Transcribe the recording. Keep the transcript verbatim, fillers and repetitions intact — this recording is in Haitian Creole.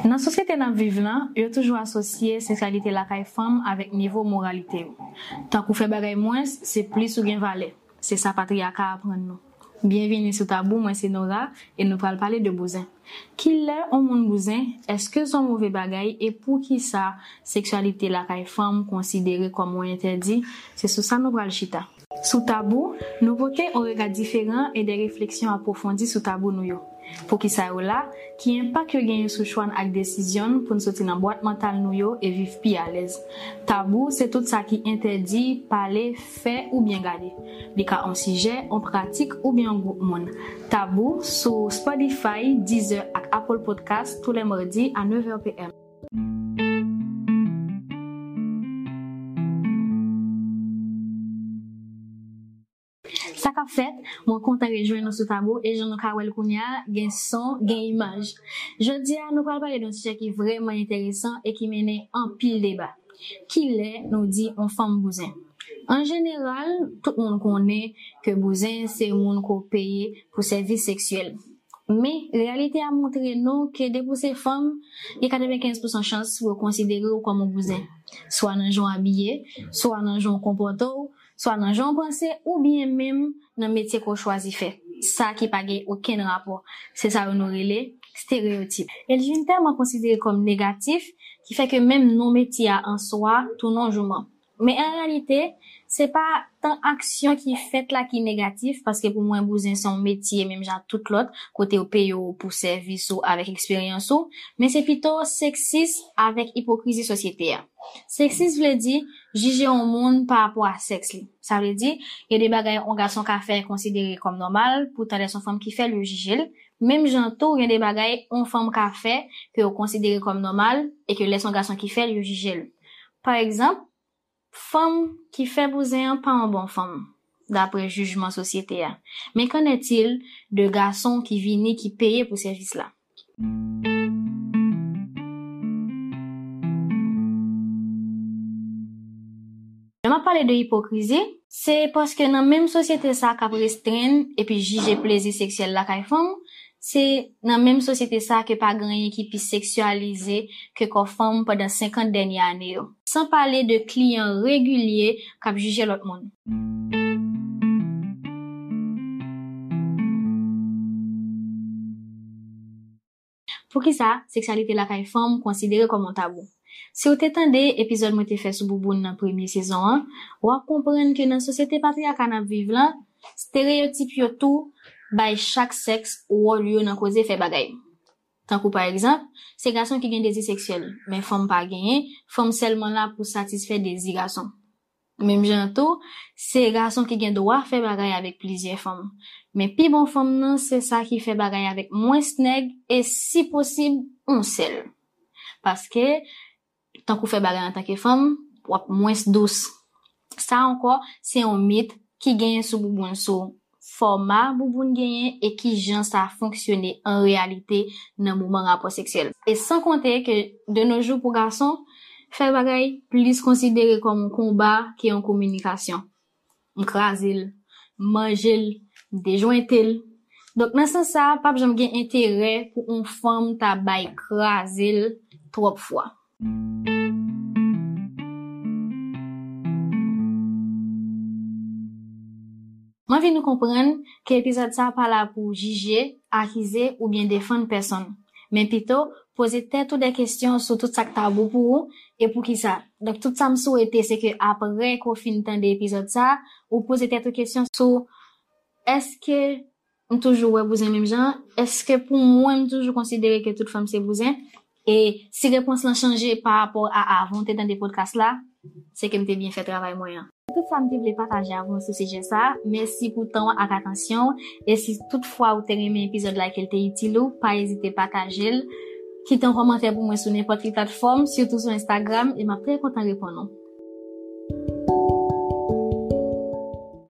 Nan sosyete n ap viv lan, yo toujou asosye seksyalite lakay fanm avèk nivo moralite yo. Tank ou fè bagay mwens, se plis ou gen valè. Se sa patriyaka aprann nou. Byenvini sou Tabou, mwen se Nora, e nou pral pale de bouzen. Kilè on moun bouzen? Èske se on move bagay? E poukisa seksyalite lakay fanm konsidere kòm on entèdi? Se sou sa nou pral chita. Sou Tabou, nou pote on rega diferan e de refleksyon apwofondi sou tabou nou yo. Poukisa yo la? Ki enpak yo genyen sou chwa n ak desizyon n pou n soti nan bwat mantal nou yo e viv pi alèz? Tabou se tout sa ki entèdi pale, fè oubyen gade. Li ka on sijè, on pratik oubyen on gwoup moun. Tabou sou Spotify, Deezer ak Apple Podcast tou lè madi a nèf è p m. Sa k ap fèt? Mwen kontan rejwenn nou sou Tabou e jan nou ka wè l kounye a, gen son, gen imaj. Jodi a, nou pral pale de yon sijè ki vrèman enteresan e ki mennen anpil deba. Kilè nou di on fanm bouzen? An jeneral, tout moun konnen ke bouzen se moun ke w peye pou sèvis seksyèl. Men, reyalite a montre nou ke depi w se fanm, gen katrevenkenz pousan chans pou yo konsidere w kòm yon bouzen. Swa nan jan w abiye, swa nan jan w konpòte w, swa nan jan w panse, oubyen menm nan metye ke w chwazi fè. Sa ki pa gen okenn rapò. Se sa yo nou rele estereyotip. E l vin tèlman konsidere kòm negatif, ki fè ke menm non metye a an swa tounen yon jouman. Men an reyalite, se pa tan aksyon ki fèt la ki negatif, paske pou mwen, bouzen se yon metye, menm jan ak tout lòt, kote yo peye w pou sèvis ou avèk eksperyans ou, men se pito seksis avèk ipokrizi sosyete a. Seksis vle di jije yon moun pa rapò a sèks li. Sa vle di, gen de bagay yon gason ka fè konsidere kòm nòmal, poutan lè se yon fanm ki fè l, yo jije l. Menm jan tou, gen de bagay yon fanm ka fè ke yo konsidere kòm nòmal e ke lè se yon gason ki fè l, yo jije l. Pa egzanp, fanm ki fè bouzen an pa yon bon fanm, dapre jijman sosyete a. Men qu'en est-il de gason ki vini, ki peye pou sèvis la? Lè m ap pale de ipokrizi, se paske nan menm sosyete sa k ap restrenn epi jije plezi seksyèl lakay fanm, se nan menm sosyete sa ke pa gen anyen ki pi seksyalize ke kò fanm pandan senkant dènye ane yo. San pale de kliyan regilye k ap jije lòt moun. Poukisa seksyalite lakay fanm konsidere kòm yon tabou? Si w te tande epizòd mwen te fè sou bouboun nan premye sezon an, w ap konprann ke nan sosyete patriyaka n ap viv lan, estereyotip yo tou bay chak sèks wòl yo nan koze fè bagay. Tankou pa egzanp, se gason ki gen dezi seksyèl, men fanm pa genyen, fanm sèlman la pou satisfè dezi gason. Menm jan an tou, se gason ki gen dwa fè bagay avèk plizyè fanm. Men pi bon fanm nan, se sa ki fè bagay avèk mwens nèg e si posib, yon sèl. Paske, tankou fè bagay antanke fanm, w ap mwens dous. Sa ankò, se yon mit ki genyen sou bouboun, sou fòma bouboun genyen e kijan sa fonksyone an reyalite nan moman rapò seksyèl. E san konte ke de nos jours pou gason, fè bagay plis konsidere kòm yon konba ke yon kominikasyon. M kraze l, m manje l, m dejwente l. Donk nan sans sa, p ap janm gen enterè pou yon fanm ta bay kraze l twòp fwa. M anvi nou konprann ke epizòd sa pa la pou jije, akize oubyen defann pèsonn, men pito poze tèt ou de kesyon sou tout sa k tabou pou ou e poukisa. Donk tout sa m swete se ke apre ke w fin tande epizòd sa, ou poze tèt ou kesyon sou, èske m toujou wè bouzen menm jan? Èske pou mwen m toujou konsidere ke tout fanm se bouzen? E si repons lan chanje pa rapò a avan w te tande podcast la, se ke m te byen fè travay mwen an. Se tout sa m te vle pataje avè w sou sijè sa. Mèsi pou tan w ak atansyon w. E si tout fwa ou te renmen epizòd la e ke l te itil ou, pa ezite pataje l. Kite yon kòmantè pou mwen sou nenpòt ki platfòm, sitou sou Instagram, e m ap trè kontan reponn ou.